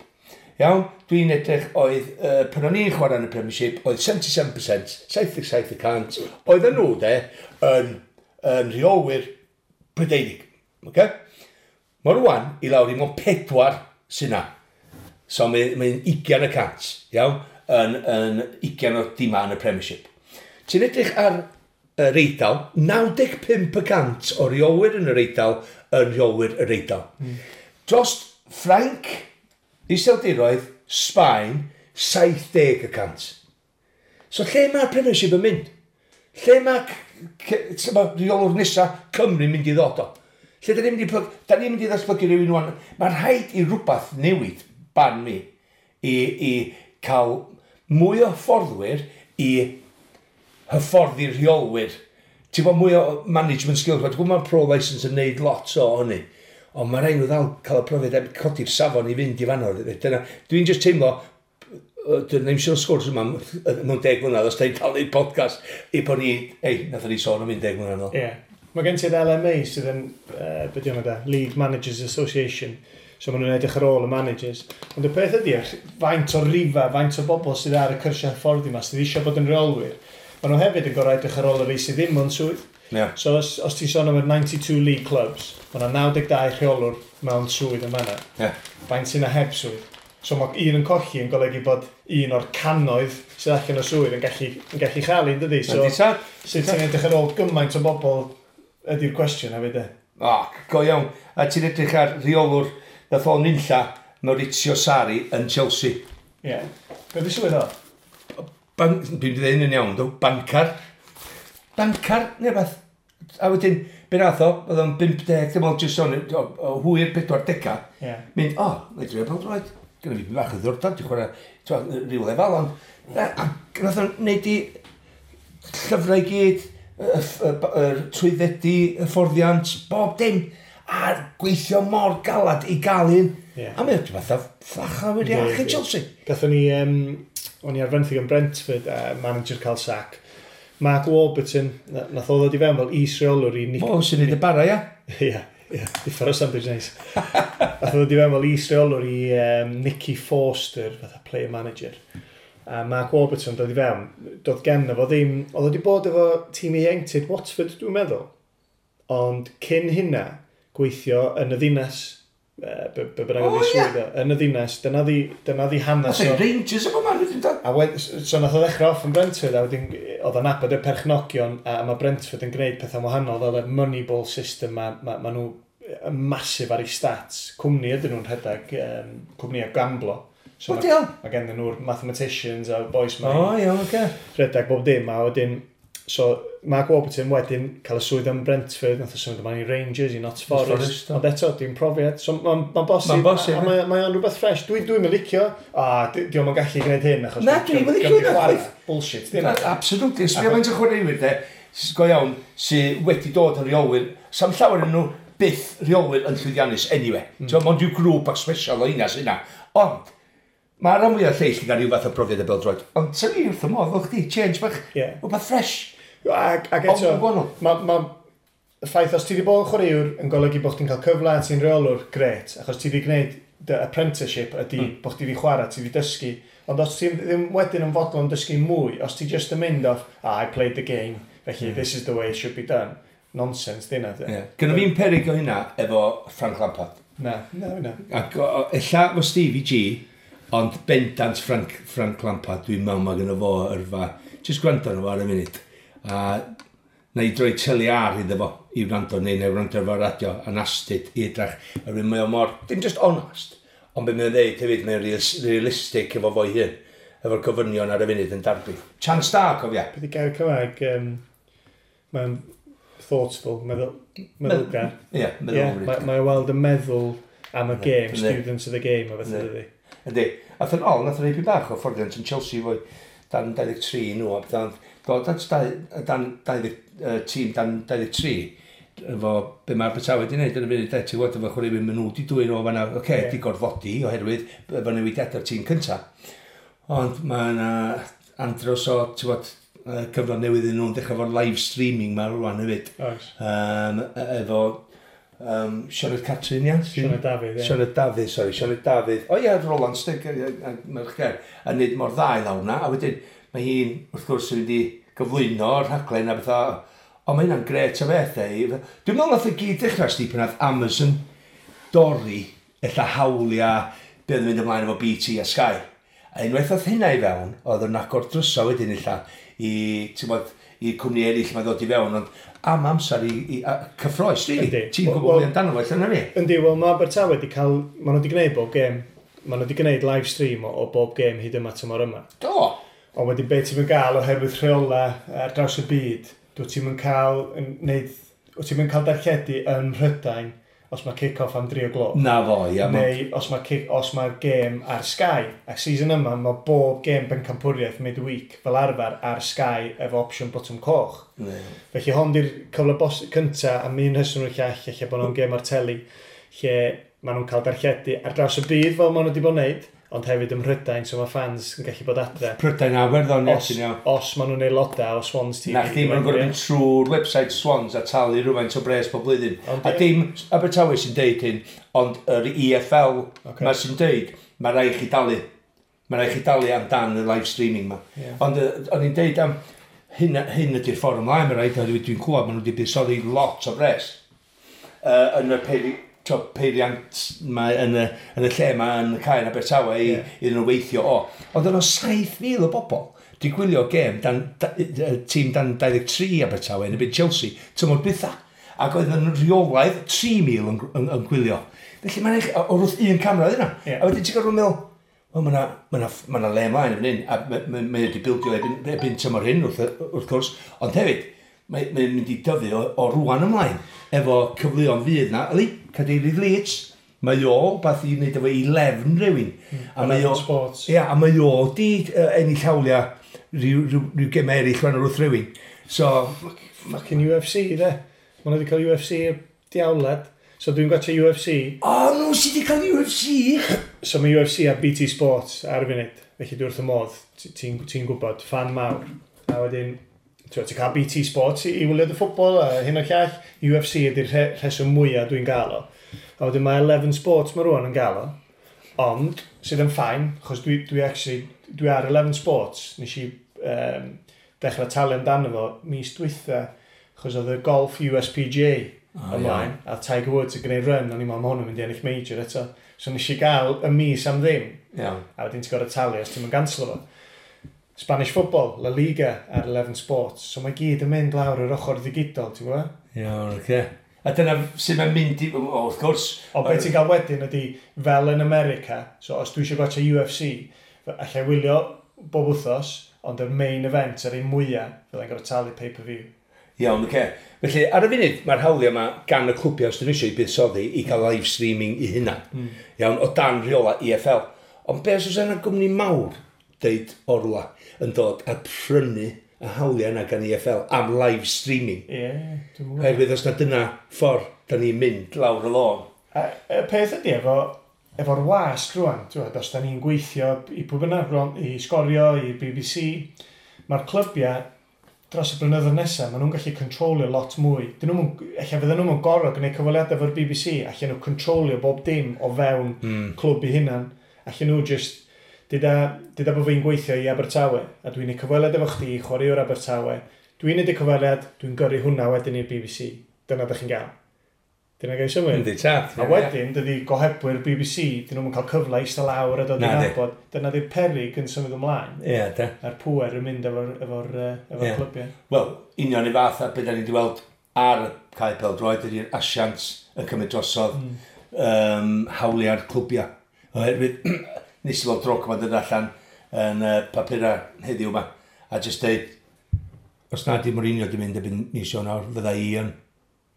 Iawn, dwi'n edrych oedd, pan o'n i'n chwarae yn y Premiership, oedd 77%, 77%, oedd nhw de, yn rheolwyr Prydeinig. Okay? Mae rwan i lawr i mewn 4 sy'n na. So mae'n 20%, iawn, yn 20 o dima yn y Premiership. Ti'n edrych ar yr Eidal, 95% o reolwyr yn yr Eidal yn reolwyr yr Eidal. Dros Ffrainc, Iseldiroedd, Sbaen, 70%. So lle mae'r Premiership yn mynd? Lle mae rheolwr nesa Cymru mynd i ddod o? Lle da ni'n mynd i, da ni'n mynd i ddatblygu rhywun wan? Mae'n rhaid i rhywbeth newid, barn mi, i cael mwy o hyfforddwyr i hyfforddi rheolwyr. Ti'n bod mwy o management skills. Dwi'n gwybod mae'r pro license yn neud lot o hynny. Ond mae rhaid nhw ddal cael y profiad a codi'r safon i fynd i fanno. Dyna, dwi'n just teimlo, dwi'n ddim siŵr sgwrs yma mewn 10 mlynedd, os da ni'n cael neud podcast, i bod ni, ei, nath ni sôn am 10 mlynedd nôl. Ie. Yeah. Mae gen ti'r LMA sydd yn, be di hwnna da, League Managers Association. So maen nhw'n edrych ar ôl y managers. Ond y peth ydy, faint o rifa, faint o bobl sydd ar y cyrsiau hyfforddi yma, sydd eisiau bod yn reolwyr, maen nhw hefyd yn gorau edrych ar ôl y rei sydd ddim mewn swydd. Yeah. So os ti'n sôn am yr 92 league clubs, mae yna 92 rheolwr mewn swydd yn fanna. Yeah. Faint sy'n na heb swydd. So mae un yn colli yn golygu bod un o'r cannoedd sydd allan o swydd yn gallu chael un, dydy? So, sut ti'n edrych ar ôl gymaint o bobl ydy'r cwestiwn hefyd, e? O, go iawn. A ti'n edrych ar rheolwr nath o'n nunlla Maurizio Sarri yn Chelsea. Ie. Yeah. Be di swydd o? Dwi'n dweud hyn yn iawn, dw. Bancar. Bancar, neu beth. A wedyn, be nath o, oedd o'n 50, dim ond jyst o'n o hwyr 40. Mynd, o, na i drio pêl-droed. Gyda fi bach o ddiddordeb, dwi'n chwarae rhyw lefel, ond a nath o'n neud i llyfrau i gyd, y trwyddedu, hyfforddiant, bob dim. A gweithio mor galad i gael un. A mae'n fatha ffacha wedi achub Chelsea. Gathon ni, o'n i ar fenthyg yn Brentford, manager cael sac. Mark Warburton, nath o ddod i fewn fel is-reolwr i Nick. O, sy'n neud y bara, ia? Ie, differ o sandwich neis. Nath o ddod i fewn fel is-reolwr i Nicky Forster, fatha player manager. A Mark Warburton dod i fewn, doedd genno fo ddim, oedd o wedi bod efo tîm ieuenctid Watford, dwi'n meddwl. Ond cyn hynna, gweithio yn y ddinas, be bynnag oedd ei swydd o, yn y ddinas, dyna ddi hanes o. Rangers o man, wedyn dod. A so nath o ddechrau off yn Brentford, a wedyn oedd o'n nabod y perchnogion, a mae Brentford yn gwneud pethau wahanol fel y Moneyball system, ma nhw massive ar ei stats. Cwmni ydyn nhw'n rhedeg, cwmni o gamblo. So hell? Mae gen nhw'r mathematicians a boys ma O, iawn, oce. Rhedeg bob dim, a wedyn, so Mark Warburton wedyn cael y swydd yn Brentford, nath o symud ymlaen i Rangers, i Notts Forest, Forest, do. Ond eto, dim profiad. So mae'n ma bosib, Ma'n bosib, a mae o'n rhywbeth fresh. Dwi'n licio, a di o'm yn gallu gwneud hyn, achos Na, dwi'm yn licio hynna, chwaith. Bullshit, dim. Absolutely. Sbio faint o chwaraewyr, de, go iawn, sydd wedi dod yn rheolwyr. Sam llawer yn nhw byth rheolwyr yn llwyddiannus anyway. Mm. Mond yw grŵp bach special o hynna sy'n yna. Ond, mae rhan fwyaf lleill yn cael rhyw fath o profiad y bêl-droed. Ond sy'n ni wrth y modd, fel chdi, change bach, rhywbeth fresh. Ac eto, Ond gwahanol. ma y ffaith os ti wedi bod yn chwaraewr yn golygu bod chdi'n cael cyfle a ti'n rheolwr, gret, achos ti wedi gwneud dy apprenticeship ydy bod chdi wedi chwarae, ti wedi dysgu. Ond os ti ddim wedyn yn fodlon dysgu mwy, os ti just yn mynd off, "Ah, I played the game, felly this is the way it should be done." Nonsense, di hynna. Yeah. Gynna fi'n perig o hynna efo Frank Lampard. Na. Ac ella fo Stevie G Ond bendant Frank Lampard, dwi'n meddwl mae gynno fo yrfa. Just gwrando arno fo ar y munud. A na i droi teli ar iddo fo i wrando, neu na i wrando ar radio, a'n astud i edrach. A rwy'n mae o mor, dim just honest, ond be mae'n dweud hefyd, mae'n realistic efo fo'i hun, efo'r gofynion ar y funud yn Derby. Chance da, cofia. Beth i gair Cymraeg, mae'n thoughtful, meddylgar. Ie, yeah, meddylfryd. Yeah, mae weld yn meddwl am y game, students of the game, a beth ydy. Ydy. Ath yn ôl, nath o'n ei bach o fforddiant yn Chelsea fwy dan 23 nhw, a beth dod at dan 20, tîm dan 23, efo be mae Abertawe wedi gwneud yn y funud, ti'n gwybod, efo chwaraewyr maen nhw wedi dwyn o fanna, oce, okay, yeah. Di gorfodi oherwydd efo newidiadau'r tîm cynta. Ond mae yna andros o, ti'n gwybod, cyfnod newydd yn nhw'n dechrau efo'r live streaming ma rwan hefyd. Oes. Efo Sioned Catrin, ia? Sioned Dafydd, ie. Sioned Dafydd, sori, Sioned Dafydd. O ie, Roland Stig, merch ger, a nid mor dda i lawr na. A wedyn, mae hi'n, wrth gwrs, yn mynd i gyflwyno'r rhaglen a bethau. Ond mae hynna'n gret o beth, e. Dwi'n meddwl nath y gyd dechrau, sti, pan nath Amazon dorri, ella hawliau, be oedd yn mynd ymlaen efo BT a Sky. A unwaith oedd hynna i fewn, oedd yn agor drysa wedyn ella i, ti'n bod, i cwmni eraill mae ddod i fewn, ond am amser i cyffroes, really. Ti'n gwybod mwy amdano fo, allan na fi? Yndi, wel mae Abertawe wedi cael, maen nhw wedi gwneud bob gêm, maen nhw wedi gwneud live stream o bob gêm hyd yma tymor yma. Do! Ond wedyn be ti'n mynd gael oherwydd rheola ar draws y byd, dwi ti'n mynd cael, wyt ti'n mynd cael darlledu yn Mhrydain os mae kick-off am 3 o gloch. Na fo, ia. Neu os mae'r gêm ar Sky. A season yma, mae bob gêm bencampwriaeth midweek fel arfer ar Sky efo opsiwn botwm coch. Ne. Felly hon di'r cyfle cynta am un rheswm o'r llall, lle bod nhw'n gêm ar teli, lle maen nhw'n cael darlledu ar draws y byd fel maen nhw wedi bod yn neud, ond hefyd ym Mhrydain, so mae fans yn gallu bod adre. Prydain a Iwerddon, ie. Os maen nhw'n aelodau o Swans TV. Na chdi, maen nhw'n gorfod mynd trwy'r website Swans a talu rhywfaint o bres pob blwyddyn. A dim Abertawe sy'n deud hyn, ond yr EFL okay. Ma sy'n deud, mae rhaid chi dalu. Mae rhaid chi dalu amdan y live streaming ma. Yeah. Ond o'n i'n deud am hyn ydy'r ffordd ymlaen, mae rhaid, dwi'n clywed, maen nhw wedi buddsoddi lot o bres yn y peiriant mae yn y lle mae yn y cae yn Abertawe i iddyn nhw weithio o. Ond yno 7,000 o bobl di gwylio gêm tîm dan 23 Abertawe yn y byd Chelsea tymor dwytha. Ac oedd yn rheolaidd 3,000 yn gwylio. Felly mae'n eich, o'r wrth un camera oedd yna. Yeah. A wedyn ti'n gorfod meddwl, wel mae yna le ymlaen yn hyn, a mae wedi bildio erbyn tymor hyn wrth gwrs, ond hefyd, mae'n mynd i dyfu o rwan ymlaen efo cyfleon fydd na. Yli, cadeirydd Leeds, mae o beth i wneud efo i lefn rhywun. A mae o Sports. Ia, a mae o di ennill hawliau rhyw gemau eraill rhan o'r wrth rhywun. So, fucking UFC, de. Maen nhw wedi cael UFC diawled. So dwi'n gwachio UFC. O, nhw sydd wedi cael UFC! So mae UFC a BT Sports ar y funud. Felly dwi wrth y modd, ti'n gwybod, fan mawr. A wedyn, ti'n cael BT Sports i wylio dy ffwbol a hyn o'r llall. UFC ydy'r rheswm mwyaf dwi'n gael o. A wedyn mae 11 Sports mae rwan yn gael o. Ond, sydd yn ffain, achos dwi actually, dwi ar 11 Sports. Nes i dechrau talu amdano fo mis dwytha, achos oedd y golf USPGA ymlaen, a Tiger Woods yn gwneud run, o'n i'n meddwl, mae hwn yn mynd i ennill major eto. So nes i gael y mis am ddim. Iawn. A wedyn ti'n gorfod talu os ti'n mynd ganslo fo. Spanish football, La Liga ar 11 Sports. So mae gyd yn mynd lawr yr ochr ddigidol, ti'n gwybod? Iawn, oce. A dyna sydd mae'n mynd i, wrth gwrs. Ond beth ti'n gael wedyn ydy, fel yn America, so os dwi eisiau gwachio UFC, allai wylio bob wythnos, ond yr main event, yr un mwyaf, fyddai'n gorfod talu pay-per-view. Iawn, oce. Felly, ar y funud, mae'r hawliau yma gan y clwbiau os dyn nhw eisiau i buddsoddi i gael live streaming i hynna. Iawn, o dan rheola EFL. Ond beth os yna gwmni mawr, deud orla, yn dod a prynu y hawliau yna gan EFL am live streaming. Ie, dwi'n gwybod. Oherwydd os na dyna ffordd da ni'n mynd lawr y lôn. A y peth ydy efo'r wasg rwan, ti'n gwybod, os da ni'n gweithio i pwy bynnag, rwan, i Sgorio, i BBC, mae'r clybiau dros y blynyddoedd nesaf, maen nhw'n gallu controlio lot mwy. Ella fydden nhw'n gorfod gwneud cyfweliadau efo'r BBC, allan nhw controlio bob dim o fewn clwb i hunan. Allan nhw just, dyda bod fi'n gweithio i Abertawe, a dwi'n neud cyfweliad efo chdi, chwaraewr Abertawe. Dwi'n neud y cyfweliad, dwi'n gyrru hwnna wedyn i'r BBC. Dyna ydych chi'n gael. Dyna gael symud. Yndi, tad. A wedyn, dydy gohebwyr BBC, dyn nhw'n cael cyfle i eistedd lawr a dod i Na, di. nabod. Dyna di'r perig yn symud ymlaen. Ie, de. A'r pŵer yn mynd efo'r clybiau. Wel, union i fath a beth da ni wedi weld ar y cae pêl-droed ydy'r asiant yn cymryd drosodd hawliau'r clwbiau. Oherwydd, nes i weld Drogba dod allan yn papurau heddiw yma, a jyst deud, os na di Mourinho di mynd erbyn mis Ionawr, fydda i yn.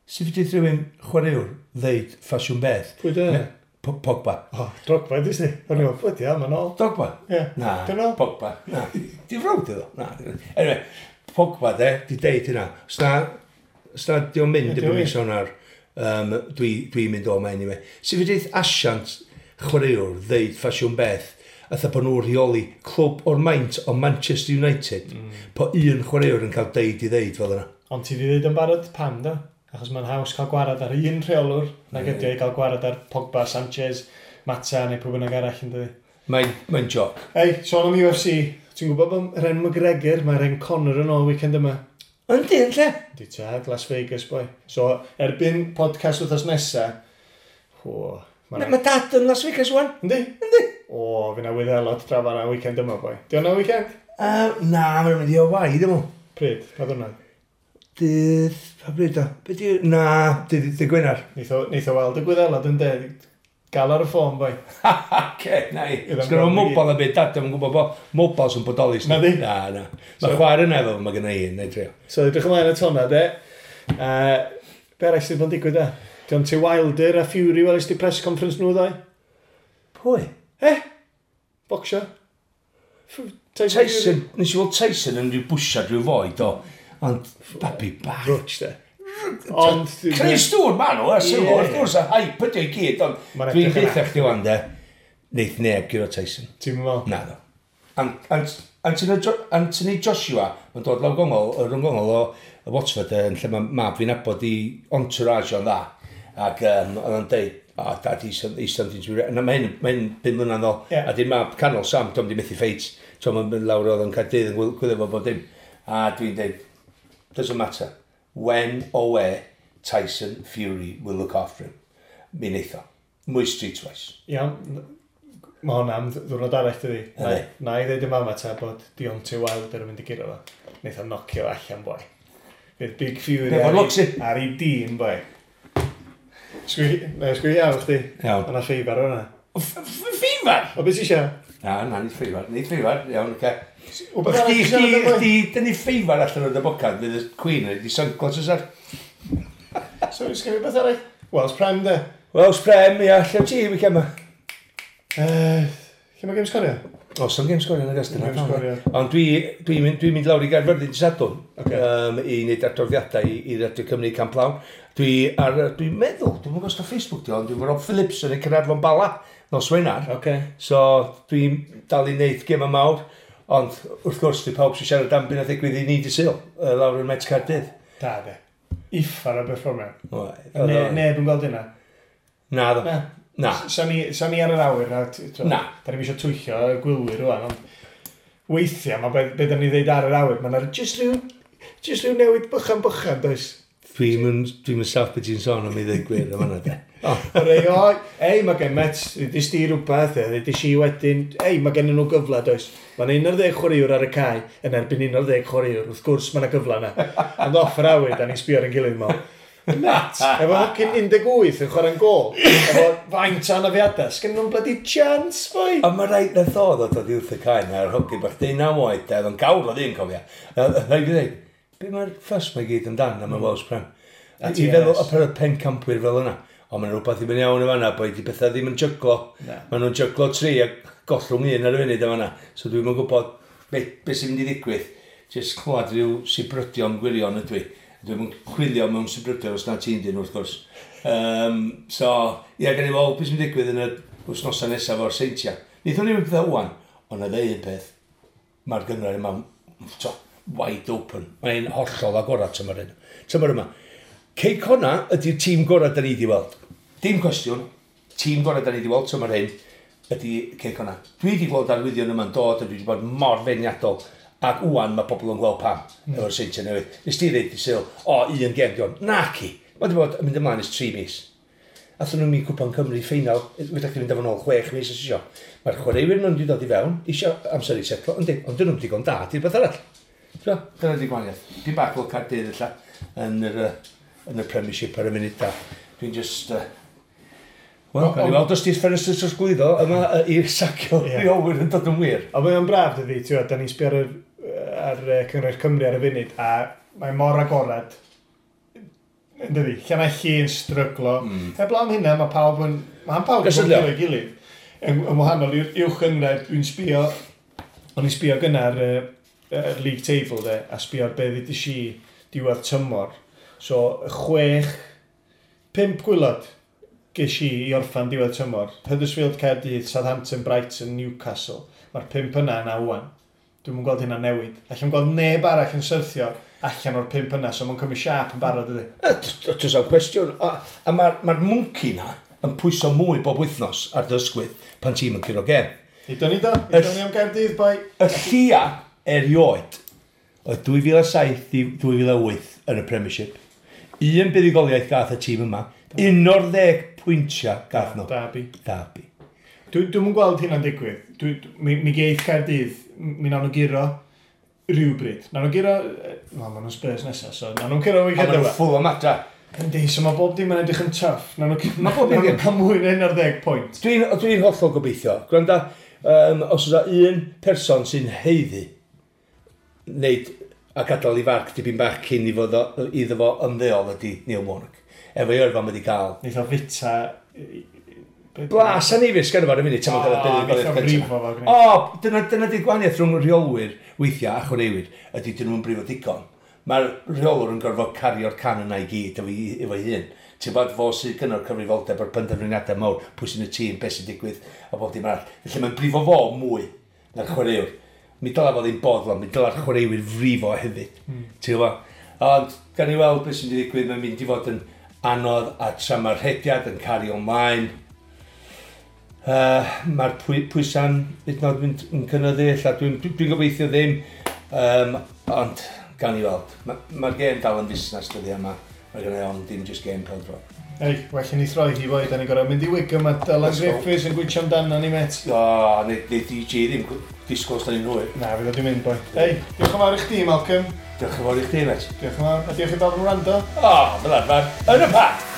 Sut fedrith rhywun chwaraewr ddeud ffasiwn beth? Pwy dy? Pogba. O, Drogba, ydys ni. O'n i'n meddwl, bloody hell, ma'n ôl. Drogba? Ie. Na, Dyn nhw? Pogba. Na. Di frawd iddo? Na. Anyway, Pogba de, di deud hynna. Os na di o'n mynd Ie, di erbyn o'n mis Ionawr, dwi'n mynd o ma anyway. Sut fedrith asiant chwaraewr ddeud ffasiwn beth, atha bod nhw'n rheoli clwb o'r maint o Manchester United, po un chwaraewr yn cael deud i ddeud fel yna. Ond ti di ddeud yn barod pam, do? Achos mae'n haws cael gwarad ar un rheolwr nag ydi o i gael gwarad ar Pogba, Sanchez, Mata neu pwy bynnag arall yn dydi. Mae'n joc. Ei, sôn am UFC, ti'n gwybod bod Ren McGregor, mae Ren Conor yn ôl weekend yma. Yndi, yn lle? Di tad, Las Vegas, boi. So, erbyn podcast wythnos nesa, o, Mae ma dad yn Las Vegas wan. Yndi? Yndi. O, fi na wyddelod draw fan'na weekend yma, boi. Di hwnna weekend? Na, mae'n mynd i Hawaii, dim ond. Pryd? Pa ddwrnod? Dydd, pa bryd o? Be di... Na, dydd Gwener. Neith o weld y gwyddelod yn de. Gael ar y ffôn, boi. Oce, na i. Iddo'n Sgynno gweld i mobile a byd, dad, dwi'n gwybod bo mobiles yn bodoli. Na di? Na, na. Mae chwaer yna efo, mae gynna i, na i drio. So, edrych ymlaen at hwnna, de. Be arall sydd bod yn digwydd, de? Deontay Wilder a Fury, welys di press conference nhw ddoe? Pwy? Eh? Bocsio? Tyson. Tyson, nes i weld Tyson yn rhyw bwsiad rhyw foi, do. Ond, babi bach. Rwtch, de. Ond... Creu stŵr ma nhw, a sylw, wrth gwrs, a hype ydi o i gyd, ond Ma'n dwi'n edrych yn deutha chdi wan, de, neith neb guro Tyson. Ti'n meddwl? Na, do. Anthony Joshua, mae'n dod lawr gongol, rhwng gongol o Watford, yn lle mae mab fi'n nabod i entourage o'n dda. Ac oedd o'n deud, oh, dad, he's something to be... Na, mae hyn 5 mlynedd nôl. Ie. A di'r mab canol Sam, dwi'n di methu ffeit. Tom yn mynd lawr oedd yn Caerdydd yn gwylio fo bob dim. A dwi'n deud, doesn't matter. When or where Tyson Fury will look after him. Mi neith o. Mwy streetwise. Iawn. Mae hwnna am ddiwrnod arall, dydi? Na, Yndi. na i ddeud i mama ta bod Deontay Wilder yn mynd i guro fo. Neith o nocio allan, boi. Bydd Big Fury Be' fo'n lwcs i? ar ei dîm, boi. Sgwi iawn chdi. Iawn. Yna ffeifar o'na. Ffeifar? O, beth ti eisiau? Na, na, nid ffeifar. Nid ffeifar, iawn, oce. Wbeth arall Chdi, ti chdi, siarad am, boi? chdi, dyn ni ffeifar allan o'r dybocad, fydd y Queen yn di sunglasses ar. So, sgwi beth arall? Welsh Prem, de. Welsh Prem, ia, lle ti, weekend ma? Lle mae gêm sgorio? O, some game sgorio yn y gystal. Game sgorio. Ond dwi'n mynd, dwi mynd lawr i Gaerfyrddin dydd Sadwrn Ocê. i wneud adroddiadau i Radio Cymru Camp Lawn. Dwi'n meddwl, dwi'n gwybod os na Facebook di, ond dwi'n Rob Phillips yn y Caernarfon Bala nos Wener. Oce. So dwi'n dal i wneud gema mawr, ond wrth gwrs dwi pawb sy'n siarad am beth ddigwydd i ni di Sul, lawr yn Met Caerdydd. Da, de. Uffar o berfformiad. Oedd, Neb yn gweld hynna. Na, ddo. Na. Na. Sa ni ar yr awyr, na, Na. Da ni'm eisiau twyllio y gwylwyr rwan, ond weithiau, mae be da ni ddeud ar yr awyr, mae'n jyst rhyw newid bychan bychan, does? Dwi'n mynd saff beth ti'n sôn am i ddweud gwir am hynna, de. O, Rei, o, ei, mae gen Mets, ddys di rhywbeth, ddys i wedyn, ei, mae gen nhw gyfle, does? Mae'n 11 chwaraewr ar y cae, yn erbyn 11 chwaraewr, wrth gwrs mae yna gyfle yna. Ond off yr awyr, da ni'n sbio ar ein gilydd mol. Met, efo hocyn 18 yn chwarae'n gol, efo faint o anafiadau, sgen nhw'n bloody chance, boi? Ond mae rhaid nath o ddod o wrth y cae na'r hogyn bach 19 oed, de, oedd o'n gawr o ddyn, cofia. A rhaid i ddweud, be mae'r ffys mae gyd amdan am y Welsh Prem? A I TNS. feddwl y per pencampwyr fel yna. Ond mae'n rhywbeth i fynd iawn yn fanna, boi, di bethau ddim yn jyglo. Na. Maen nhw'n jyglo tri a gollwng un ar y funud yn fanna. So dwi'n yn gwybod be sy'n mynd i ddigwydd. Just clywed rhyw sibrydion gwirion ydw i. Dwi'n yn chwilio mewn sibrydion os na ti'n dyn wrth gwrs. So, ie, gan i weld beth sy'n mynd i ddigwydd yn y wythnosau nesaf o'r Seintiau. Wnaethon ni pethau wan, ond na ddeud un peth, mae'r gynghrair yma, to, wide open. Mae'n hollol agorad tymor hyn. Tymor yma. Cei Connah ydy'r tîm gorau da ni wedi weld. Dim cwestiwn, tîm gorau da ni wedi weld tymor hyn ydy Cei Connah. Dwi wedi gweld arwyddion yma'n dod a dwi wedi bod mor feirniadol. Ac wwan mae pobl yn gweld pam efo'r Seintiau newydd. Nes ti ddeud i Sul, o, un gem di hwn. Naci. Mae wedi bod yn mynd ymlaen ers 3 mis. Athyn nhw'n mynd Cwpan Cymru ffeinal, fedra chdi fynd efo nôl 6 mis os isio. Mae'r chwaraewyr nhw'n wedi dod i fewn, isio amser i setlo, yndi, ond dyn nhw'n digon da, di'r beth arall. So, dyna di gwahaniaeth. Dim bach fel Caerdydd ella, yn y Premiership ar y munud da. Dwi'n just... Wel, gawn ni weld os di'r ffenestr trosglwyddo yma i'r sacio rheolwyr yn dod yn wir. Ond mae o'n braf, dydi, ti'n gwbod, da ni'n sbio ar Cynghrair Cymru ar y funud, a mae mor agorad, yn dydi, Llanelli yn stryglo. Heblaw am hynna, mae pawb yn... Mae pawb yn Gysylltu. gwybod ei gilydd. Yn wahanol i'r uwch gynghrair, dwi'n sbio... O'n i'n sbio gynnar league table, de, a sbio ar be ddeudais i diwedd tymor. So, chwech, pump gwaelod ges i i orffan diwedd tymor. Huddersfield, Caerdydd, Southampton, Brighton, Newcastle. Mae'r pump yna yna wan. Dwi'm yn gweld hynna newid. Allai'n gweld neb arall yn syrthio allan o'r pump yna, so mae'n cymryd siâp yn barod, ydy. Does am cwestiwn. A mae'r ma mwnci na yn pwyso mwy bob wythnos ar dy ysgwydd pan ti'n yn curo gem. Idon ni do, idon ni am Gaerdydd, boi. Y llia erioed oedd 2007 i 2008 yn y Premiership. Un buddugoliaeth gath y tîm yma. 11 pwyntiau gath nhw. Derby. Derby. Dwi'm yn gweld hynna'n digwydd. Mi geith Caerdydd, mi nawn nhw guro rhywbryd. Nawn nhw guro... Wel, maen nhw'n Spurs nesaf, so nawn nhw'n curo A weekend maen nhw'n yma. full o adra. Yndi, so mae bob dim yn edrych yn tough. Nawn nhw, Ma' bob dim nawn nhw cael mwy na 11 pwynt. Dwi hollol gobeithio. Gwranda, os oes un person sy'n haeddu wneud a gadael i farc dipyn bach cyn i fod iddo fo ymddeol ydy Neil Warnock. Efo'i yrfa mae wedi cael. Neith o fita... Blas anifus gan ar y munud, tan mae'n cael y O, buddugoliaeth neith o gyntaf. frifo fo, gwneud. O, dyna di'r gwahaniaeth rhwng rheolwyr weithiau a chwaraewyr, ydy dyn nhw'n brifo digon. Mae'r rheolwr yn gorfod cario'r can yna i gyd efo'i hun. Ti'n bod fo sydd gynno'r cyfrifoldeb o'r penderfyniadau mawr, pwy sy'n y tîm, beth sy'n digwydd, a bob dim arall. Felly mae'n brifo fo mwy na'r chwaraewr. Mi dyla fo ddim boddlon, mi dyla'r chwaraewyr frifo hefyd. Ti'n gwybod? Ond, gan i weld beth sy'n digwydd, mae'n mynd i fod yn anodd a tra mae'r rhediad yn cario ymlaen, mae'r pwysa'n hyd yn oed mynd yn cynyddu, ella dwi gobeithio ddim, ond gan i weld. Mae'r ma gêm dal yn fusnes dyddi yma. Mae gen i ond dim just gêm pêl-droed. Ei, well i ni throi hi boi, da ni'n gorfod mynd i Wigan, mae Dylan Let's go. Griffiths yn gwytio amdano ni, met. O, neu DJ ddim disgwyl os da ni'n hwyr. Na, fydd o di mynd, boi. Ei, diolch yn fawr i chdi, Malcolm. Diolch yn fawr i chdi, met. Diolch yn fawr, a diolch i bawb yn wrando. O, fel arfer, yn y parc!